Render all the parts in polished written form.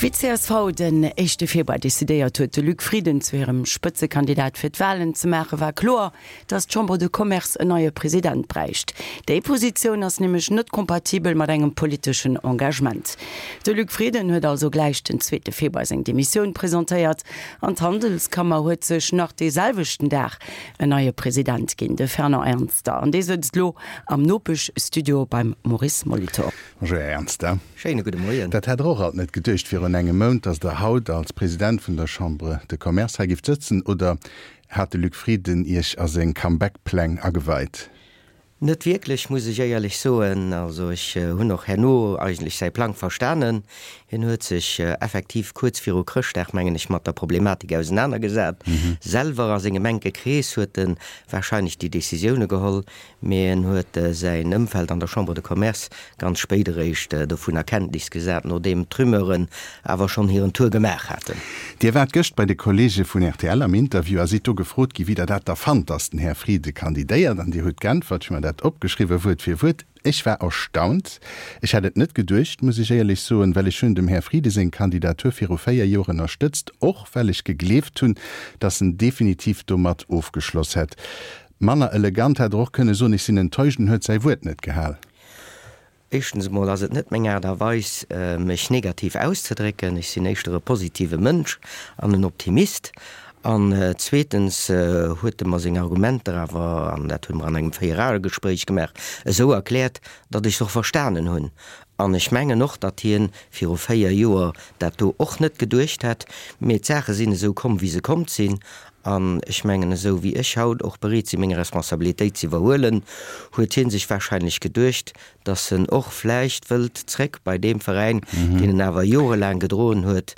Wéi d'CSV den éischte Februar decidéiert huet, de Luc Frieden zu hirem Spëtzekandidat fir d'Walen ze maachen, war kloer, datt d'Chambre de Commerce en neie President bräicht. Déi Positioun ass nämlech net kompatibel mat engem politeschen Engagement. De Luc Frieden huet also gläich den zweete Februar seng Demissioun presentéiert an d'Handelskammer huet sech nach dee selwechten Dag en neie President ginn, de Fernand Ernster. An dee sëtzt elo am Nopeschstudio beim Maurice Molitor. Bonjour Här Ernster. Schéine gudde Moien. Dat hätt Der och alt net geduecht virun engem Mount, datt Der haut als President vun der Chambre de Commerce hei gift sëtzen, oder hat de Luc Frieden Iech a seng Comeback-Pläng ageweit? Net wierklech, muss ech éierlech soen. Also ech hunn och herno eigentlech säi Plang verstanen. Hien huet sech effektiv kuerz viru Chrëschtdag, mengen ech, mat der Problematik ausenanergesat. Selwer a sengem enke Krees huet e warscheinlech déi Decisioune geholl. Mee en huet säin Ëmfeld an der Chambre de Commerce ganz spéit eréischt dovun a Kenntnis gesat, nodeem d'Rumeuren awer schonn hiren Tour gemaach haten. Dir waart gëscht bei de Kolleege vun rtl am Interview a sidd do gefrot gi wéi Der dat da fannt, datt den Här Frieden kandidéiert. An Dir hutt geäntwert, ech hu mer dat opgeschriwwen, Wuert fir Wuert, Ech war erstaunt. Ech hätt et net geduecht, muss ech éierlech soen, well ech hunn dem Här Frieden seng Kandidatur viru 4 Joer ënnerstëtzt, och well ech gegleeft hunn, datt en definitiv domat ofgeschloss hätt. Manner elegant hätt er och kënne soen, ech sinn enttäuscht, en huet säi Wuert net gehal. Éischtens emol ass et net meng Aart a Weis, mech negativ auszedrécken. Ech sinn éischter e positive Mënsch an en Optimist. An zweetens huet e mer seng Argumenter awer, an dat hu mer an engem Véierae-Gespréich gemaach, esou erkläert, datt ech se och verstanen hunn. An ech mengen och, datt hien viru 4 Joer dat do och net geduecht hätt. Mee d'Saache sinn esou komm, wéi se komm sinn. An ech mengen, esou wéi ech haut och bereet si meng Responsabilitéit ze iwwerhuelen, huet hie sech wahrscheinlech geduecht, datt en och vläicht wëllt zréck bei deem Veräin, deen en awer jorelaang gedroen huet,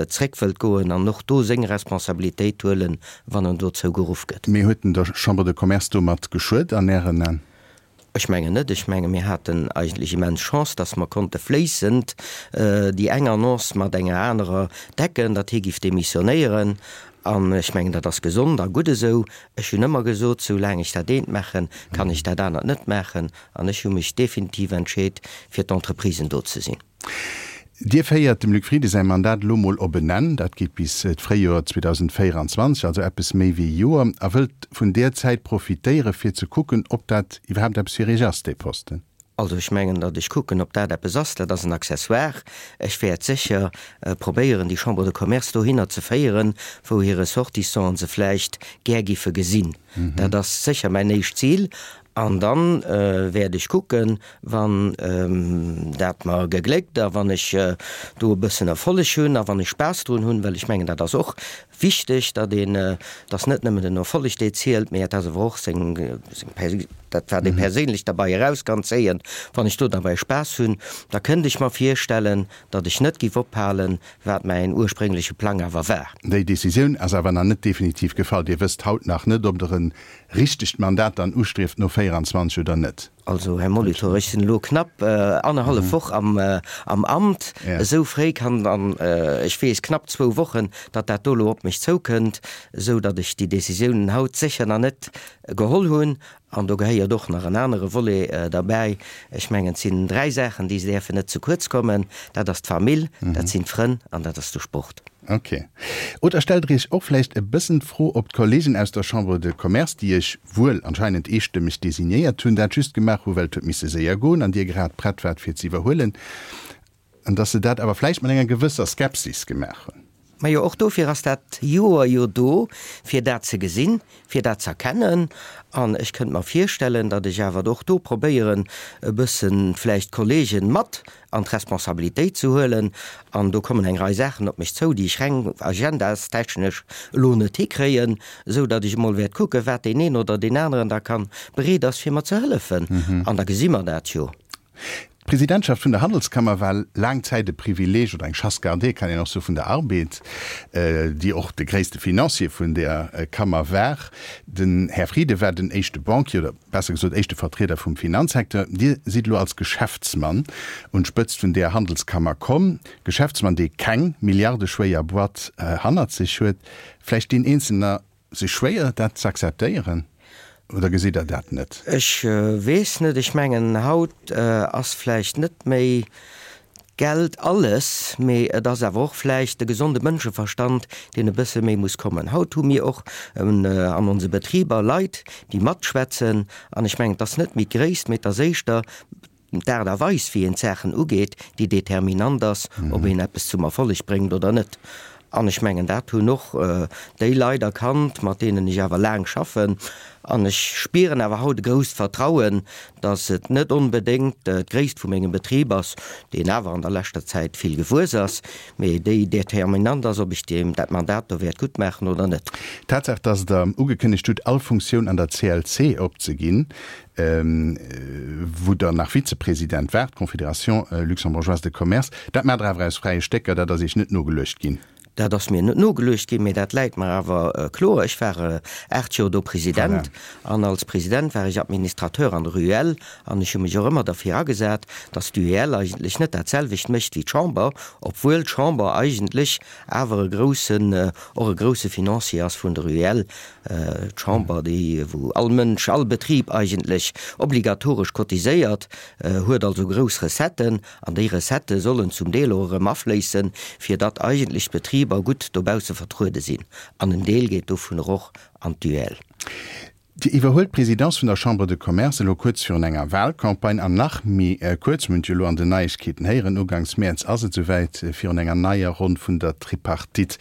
zréck wëllt goen an och do seng Responsabilitéit huelen, wann en dozou geruff gëtt. Mee huet en der Chambre de Commerce domat geschuet an Ären An? Ech mengen net. Ech menge mir haten eigentlech immens Chance, datt mer konnte fléissend déi eng Annonce mat enger anerer decken, datt hie giff demissionéieren. An ech mengen, dat ass gesond a gutt esou. Ech hunn ëmmer gesot, soulaang ech dat eent maachen, kann ech dat anert net maachen. An ech hu mech definitiv entscheet, fir d'Entreprisen do ze sinn. Dir féiert dem Luc Frieden säi Mandat elo mol op en Enn, dat geet bis d'Fréijoer 2024, also eppes méi wéi e Joer, a wëllt vun där Zäit profitéiere fir ze kucken, ob dat iwwerhaapt eppes fir Iech ass, dee Posten. Also ech mengen, datt ech kucken, ob dat eppes ass, dat ass en Accessoire. Ech wäert sécher probéieren, déi Chambre de Commerce dohinner ze féieren, wou hir Ressortissanten se vläicht gär giffe gesinn. Dat ass sécher mäin éischt Zil. An dann wäert ech kucken, wann dat mer gegléckt a wann ech do e bëssen Erfolleg hunn a wann ech Spaass drun hunn, well ech mengen, dat ass och wichteg, datt een, et ass net nëmmen den Erfolleg, dee zielt, mee et ass awer och seng, seng, dat wat ee perséinlech derbei eraus kann zéien. Wann ech do derbäi Spaass hunn, da kënnt ech mer virstellen, datt ech net giff ophalen, wat mäin urspréngleche Plang awer war. Déi Decisioun ass awer nach net definitiv gefall. Dir wësst haut nach net, ob Der en richtegt Mandat dann ustrieft no 24 oder net? Also, Här Molitor, ech sinn elo knapp annerhallef Woch am Amt. Esou fréi kann, an ech weess knapp zwou Wochen, datt dat do elo op mech zoukënnt, esou datt ech déi Décisiounen haut sécher nach net geholl hunn. An do gehéiert och nach en anere Volet derbäi. Ech mengen, et sinn dräi Saachen, déi däerfen net ze kuerz kommen. Dat ass d'Famill, dat sinn d'Frënn an dat ass de Sport. Ok. Oder stellt Der Iech och vläicht e bëssen d'Fro, ob d'Kollegen aus der Chambre de Commerce, déi Iech wuel anscheinend eestëmmeg designéiert hunn, dat just gemaach hu well et huet misse séier goen an Dir grad prett waart fir ze iwwerhuelen, an dass se dat awer vläicht mat enger gewësser Skepsis gemaach hunn? Majo, och dofir ass dat Joer jo do, fir dat ze gesinn, fir dat z'erkennen. An ech kënnt mer virstellen, datt ech awer och do probéieren, e bësse vläicht d'Kollegen mat an d'Responsabilitéit ze huelen. An do kommen eng Rei Saachen op mech zou, déi ech reng agendastechnesch elo net hikréien, esou datt ech emol wäert kucken, wat deen een oder deen aneren da kann bereet ass, fir mer ze hëllefen. An da gesi mer dat jo. D'Presidentschaft vun der Handelskammer war laang Zäit e Privileeg oder eng Chasse gardée, kann een och soe, vun der Arbed, déi och de gréisste Financier vun där Kammer war. Den Här Frieden war den éischte Banquier oder besser gesot éischte Vertrieder vum Finanzsecteur. Dir sidd elo als Geschäftsmann un d'Spëtzt vun där Handelskammer komm. Geschäftsmann, dee keng milliardeschwéier Boîte hannert sech huet. Vläicht deen Eenzelner sech schwéier, dat z'akzeptéieren, oder gesitt Der dat net? Ech weess net. Ech mengen, haut ass vläicht net méi. Geld alles, mee et ass awer och vläicht de gesonde Mënscheverstand, deen e bësse méi muss kommen. Haut hu mir och an onse Betriber Leit, déi matschwätzen, an ech mengen, et ass net méi d'Gréisst, mee et ass éischter d'Aart a Weis, wéi een d'Saachen ugeet, déi determinant ass, ob een eppes zum Erfolleg bréngt oder net. An ech mengen, dat hunn och déi Leit erkannt, mat deenen ech awer laang schaffen. An ech spieren awer haut e grousst Vertrauen, datt et net onbedéngt d'Gréisst vu mengem Betrib ass, deen awer an der leschter Zäit vill gewuess ass, mee déi determinant ass, ob ech deem dat Mandat do wäert gutt maachen oder net. D'Tatsaach, datt Der ugekënnegt hutt, all Funktioun an der CLC opzeginn, wou Der nach Vizepresident waart, Confédération luxembourgeoise de commerce, dat maacht Der awer aus fräie Stécker, dat ass Iech net nogeluecht ginn? Dat ass mir net nogeluecht ginn, mee dat läit mer awer kloer. Ech war 8 Joer do President an als President war ech Administrateur an der UEL an ech hu mech och ëmmer derfir agesat, datt d'UEL eigentlech net dat selwecht mécht wéi d'Chamber, obwuel d'Chamber eigentlech awer e groussen, och e grousse Financier ass vun der UEL. D'Chamber, déi wou all Mënsch, all Betrib eigentlech obligatoresch cotiséiert, huet also grouss Recetten an déi Recettë sollen zum Deel och erëm afléissen, fir datt eigentlech d'Betriber gutt dobausse vertruede sinn. An en Deel geet dovunner och an d'UEL. Dir iwwerhuelt d'Presidence vun der Chambre de Commerce elo kuerz virun enger Wahlcampagne an nach méi kuerz, mir hunn et jo elo an den Neiegkeeten héieren, uganks Mäerz ass et esouwäit, virun enger neier Ronn vun der Tripartite.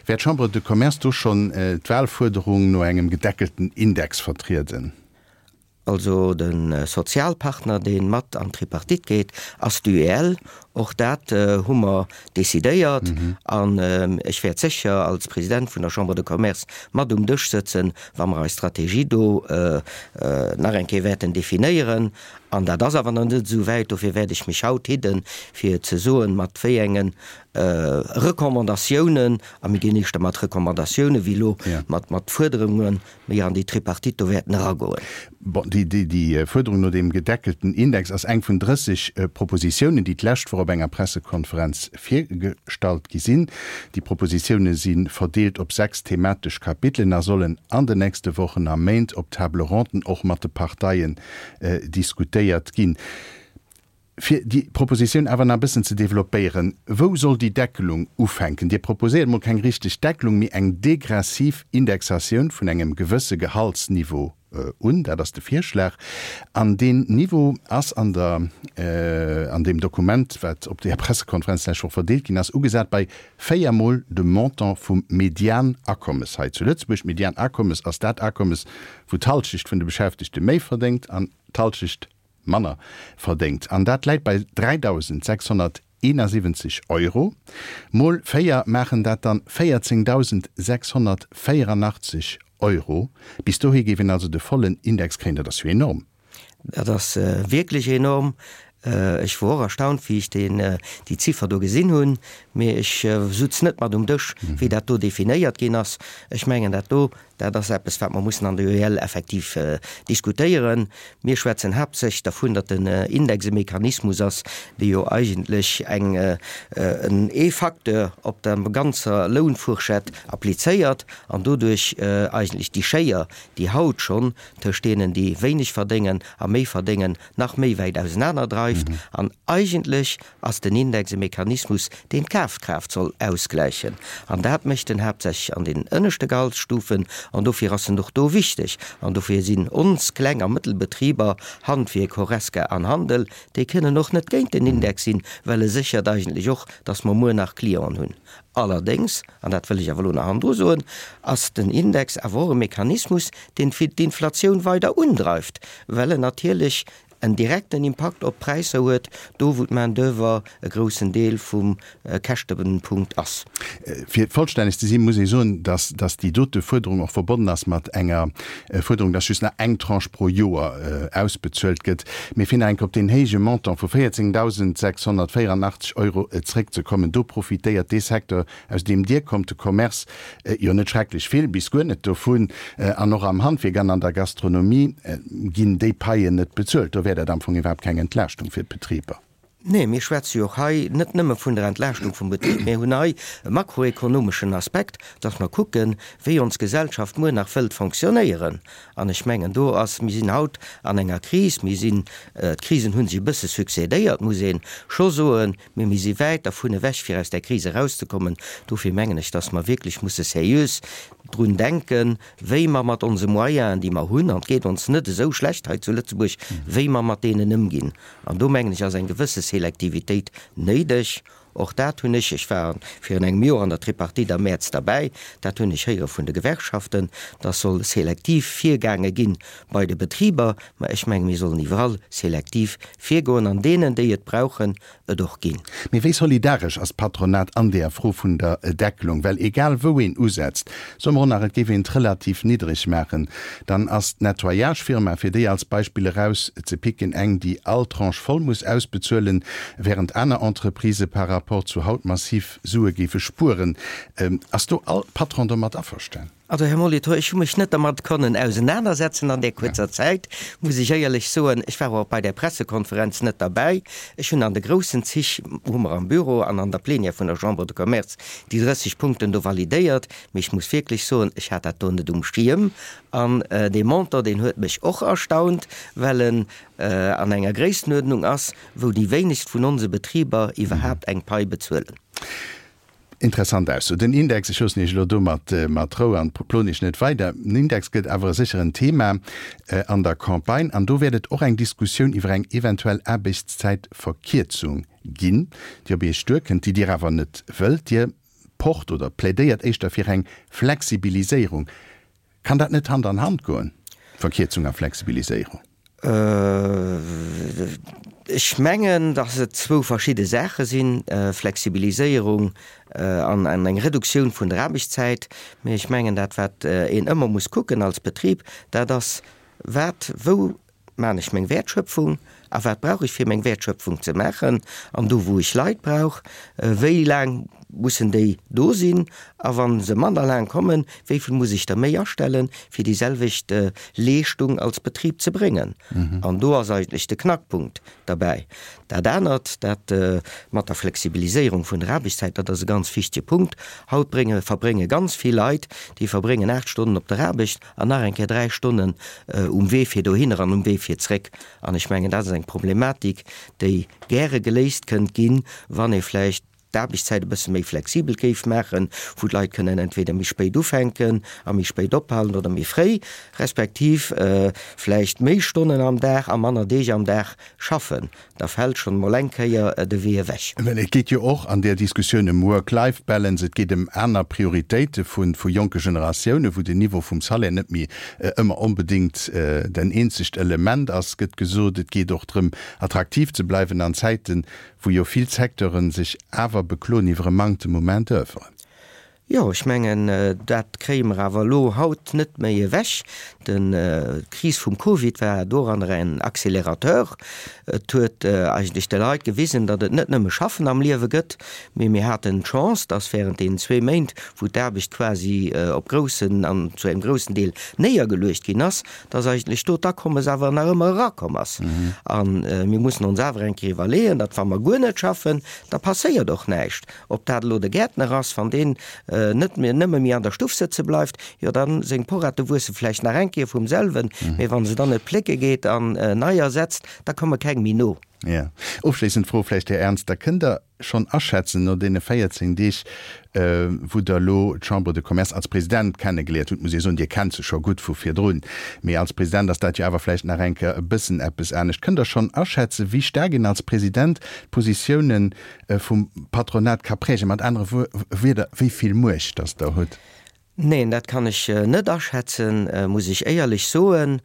Wäert d'Chambre de Commerce do schonn d'Wahlfuerderung no engem gedeckelten Index vertrieden? Also de Sozialpartner, dee mat an d'Tripartite geet, ass d'UEL. Och dat hu mer decidéiert. An ech wäert sécher als President vun der Chambre de Commerce mat um Dësch sëtzen, wa mer eis Strategie do nach eng Kéier wäerten definéieren. An dat ass awer nach net esou wäit. Dofir wäert ech mech haut hidden, fir ze soen, mat wéi enge Recommandatiounen, a mir ginn éischter mat Recommandatiounen wéi elo mat Fuerderungen, méi an déi Tripartite do wäerten eragoen. Bon, déi Fuerderung no deem gedeckelten Index ass eng vun 30 Propositiounen, déi d'lescht Woch op enger Pressekonferenz virgestallt gi sinn. Déi Propositioune si verdeelt op 6 thematesch Kapitelen a sollen an den nächste Wochen a Méint op Table-ronden och mat de Parteien diskutéiert ginn. Fir déi Propositioun awer nach e bëssen ze développéieren, Wou soll déi Deckelung ufänken? Dir proposéiert emol keng richteg Deckelung, mee eng degressiv Indexatioun vun engem gewësse Gehaltsniveau un. Dat ass de Virschlag. An deen Niveau ass an der, an deem Dokument, wat op där Pressekonferenz d'lescht Woch verdeelt ginn ass, ugesat bei véiermol dem Montant vum Medianakommes hei zu Lëtzebuerg. D'Medianakommes ass dat Akommes, wou d'Halschecht vun de Beschäftegte méi verdéngt an d'Halschecht manner verdéngt, an dat läit bei 3.671 Euro, mol 4 maachen dat dann 14.684 Euro. Bis dohi géif een also de vollen Index kréien. Dat ass jo enorm. Dat ass wierklech enorm. Ech wor och erstaunt, wéi ech déi Ziffer do gesinn hunn, mee ech sutz net mat um Dësch, wéi dat do definéiert ginn ass. Ech mengen, dat do Dat ass eppes, wat mer mussen an der UEL effektiv diskutéieren. Mir schwätzen haaptsächlech dervun, datt den Index e Mechanismus ass, dee jo eigentlech eng, en ee Facteur op der ganzer Lounfourchette applizéiert an doduerch eigentlech déi Schéier, déi haut schonn tëscht deenen, déi wéineg verdéngen a méi verdéngen, nach méi wäit ausenaner dreift. An eigentlech ass den Index e Mechanismus, deen d'Kafkraaft soll ausgläichen. An dat mécht en haaptsächlech an den ënneschte Gehaltsstufen. An dofir ass en och do wichteg. An dofir sinn ons Kleng a Mëttelbetriber, Handwierk, Horesca an Handel, déi kënnen och net géint den Index sinn, well e séchert eigentlech och, dass mer muer nach Clienten hunn. Allerdéngs, an dat wëll ech awer elo nach hannendru soen, ass den Index awer och e Mechanismus, deen d'Inflatioun weider undreift, well en natierlech en direkten Impakt op d'Präisser huet, do wou d'Main d'oeuvre e groussen Deel vum Käschtepunkt ass. Fir vollstänneg ze sinn, muss ee soen, dass dass déi dote Fuerderung och verbonnen ass mat enger Fuerderung, dass just nach eng Tranche pro Joer ausbezuelt gëtt. Mee fir nach eng Kéier op deen héije Montant vu 14.684 Euro zréckzekommen, do profitéiert dee Secteur, aus deem Dir kommt, de Commerce, jo net schrecklech vill bis guer net dovun. An och am Handwierk an an der Gastronomie ginn déi Paien net bezuelt. Do wär dat am Fong iwwerhaapt keng Entlaaschtung fir d'Betriber. Nee, mir schwätze jo och hei net nëmme vun der Entlaaschtung vum Betrib, mir hunn hei e makroekonomeschen Aspekt, dass mer kucken, wéi ons Gesellschaft muer nach wëllt fonctionnéieren. An ech mengen, do ass, mir sinn haut an enger Kris, mir sinn, d'Krisen hu sech e bësse succédéiert, muss ee scho soen, mee mir si wäit dervun ewech, fir aus där Kris erauszekommen. Dofir mengen ech, dass mer wierklech musse seriös drun denken, wéi mer mat onse Moyenen, déi mer hunn, an et geet ons net esou schlecht hei zu Lëtzebuerg, wéi mer mat deenen ëmginn. An do, mengen ech, ass eng gewësse Selektivitéit néideg. Och dat hunn ech, ech war virun engem Joer an der Tripartite am Mäerz derbäi, dat hunn ech héiere vun de Gewerkschaften, dass soll selektiv virgaange gi bei de Betriber. Mä ech menge mir sollen iwwerall selektiv virgoen an deenen, déi et brauchen, et och ginn. Mee wéi solidaresch ass d'Patronat an deer Fro vun der Deckelung? Well egal wou een usetzt, soe mer och nach et géif een et relativ niddreg maachen, dann ass d'Nettoyage-Firma, fir déi als Beispill eraus ze picken, eng déi all Tranche voll muss ausbezuelen, während aner Entreprisë par rapport zu haut massiv Sue géife spueren. Ass do all Patron domat averstan? Also, Här Molitor, ech hu mech net dermat konnen ausenanersetzen an där kuerzer Zäit, muss ech éierlech soen. Ech war och bei där Pressekonferenz net derbäi. Ech hunn an de groussen Zich, hu mer am Büro an an der Plenière vun der Chambre de Commerce déi 30 Punkten do validéiert. Mee ech muss wierklech soen, ech hat dat do net um Schierm. An dee Montant, deen huet mech och erstaunt, well en an enger Gréisstenuerdnung ass, wou déi wéinegst vun onse Betriber iwwerhaapt eng Pai bezuelen. Interessant Ausso. Den Index, ech loossen Iech elo do mat mat Rou an ploen Iech net weider. Den Index gëtt awer e sécheren Thema an der Campagne an do wäert et och eng Diskussioun iwwer eng eventuell Aarbechtszäitverkierzung ginn, déi op Iech duerkënnt, déi Dir awer net wëllt. Dir pocht oder plädéiert éischter fir eng Flexibiliséierung. Kann dat net Hand an Hand goen, Verkierzung a Flexibiliséierung? Ech mengen, datt et zwou verschidde Saache sinn, Flexibiliséierung an eng Reduktioun vun der Aarbechtszäit. Mee ech mengen, dat wat een ëmmer muss kucken als Betrib, dat ass, wat, wou Maan ech meng Wäertschöpfung a wat brauch ech fir meng Wäertschöpfung ze maachen an do wou ech Leit brauch, wéi laang mussen déi do sinn a wann se manner laang kommen, wéi vill muss ech der méi astellen fir déi selwecht Leeschtung als Betrib ze bréngen. An do ass eigentlech de Knackpunkt derbäi. Dat anert, dat mat der Flexibiliséierung vun der Aarbechtszäit, dat ass e ganz wichtege Punkt. Haut brénge verbrénge ganz vill Leit, déi verbréngen 8 Stonnen op der Aarbecht an nach eng Kéier 3 Stonnen um Wee fir dohinner an um Wee fir zréck. An ech mengen, dat ass eng Problematik, déi gäre geléist kënnt ginn, wann ee vläicht d'Aarbechtszäit e bësse méi flexibel géif maachen, wou d'Leit kënnen entweder méi spéit ufänken a méi spéit ophalen oder méi fréi, respektiv vläicht méi Stonnen am Dag a manner Deeg am Dag schaffen. Da fält schonn emol eng Kéier de Wee ewech. Well et geet jo och an där Diskussioun ëm Work-Life-Balance, et geet ëm aner Prioritéite vu jonke Generatiounen, wou den Niveau vum Salaire net méi ëmmer onbedéngt den eenzegt Element ass, gëtt gesot. Et geet och drëm, attraktiv ze bleiwen an Zäiten, wou jo vill Secteure sech awer bekloen iwwer e Manktem u Main-d'oeuvre. Jo, ech mengen, dat kréie mer awer elo haut net méi ewech. D'Kris vum Covid war doranner en Accélérateur. Et huet eigentlech de Leit gewisen, datt et net nëmme Schaffen am Liewe gëtt, mee mir haten d'Chance, datt während deenen zwee Méint, wou d'Aarbecht quasi op groussen an zu engem groussen Deel néiergeluecht ginn ass, datt eigentlech do d'Akommes awer nach ëmmer erakomm ass. A mir mussen ons awer eng Kéier iwwerleeën, datt wa mer guer net schaffen, da passéiert och näischt. Ob dat elo de Gäertner ass, wann deen net méi nëmme méi an der Stuff sëtze bleift, jo dann seng Porrette wuesse vläicht nach eng Kéier vum selwen, mee wann se dann net plécke geet an neier setzt, da komme keng méi no. Jo. Ofschléissend Fro vläicht, Här Ernster, Kënnt Der schonn aschätzen, no deene 14 Deeg, wou Der elo d'Chambre de Commerce als President kennegeliert hutt, muss ee soen, Dir kennt se scho gutt vu virdrun, mee als President ass dat jo awer vläicht nach eng Kéier e bëssen eppes anescht, kënnt Der schonn aschätzen, wéi staark een als President d'Positiounen vum Patronat ka prägen? Mat anere Wierder, wéi vill Muecht datt Der hutt? Neen, dat kann ech net aschätzen, muss ech éierlech soen.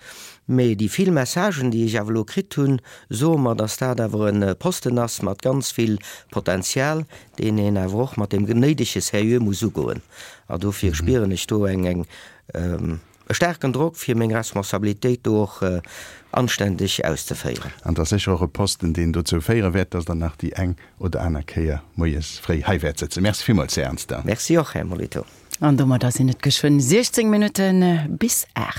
Mee déi vill Messagen, déi ech awer elo kritt hunn, soe mer, datt dat awer e Posten ass mat ganz vill Potenzial, deen een awer och mat deem néidege Sérieux muss ugoen. A dofir spieren ech do eng, eng, E staarken Drock, fir meng Responsabilitéit do och anständeg auszeféieren. An et ass sécher och e Posten, deen dozou féiere wäert, dass Der nach déi eng oder aner Kéier moies fréi hei wäert sëtzen. Merci villmools, Här Ernster. Merci och, Här Molitor. An domadder sinn et geschwënn 16 Minutte bis 8.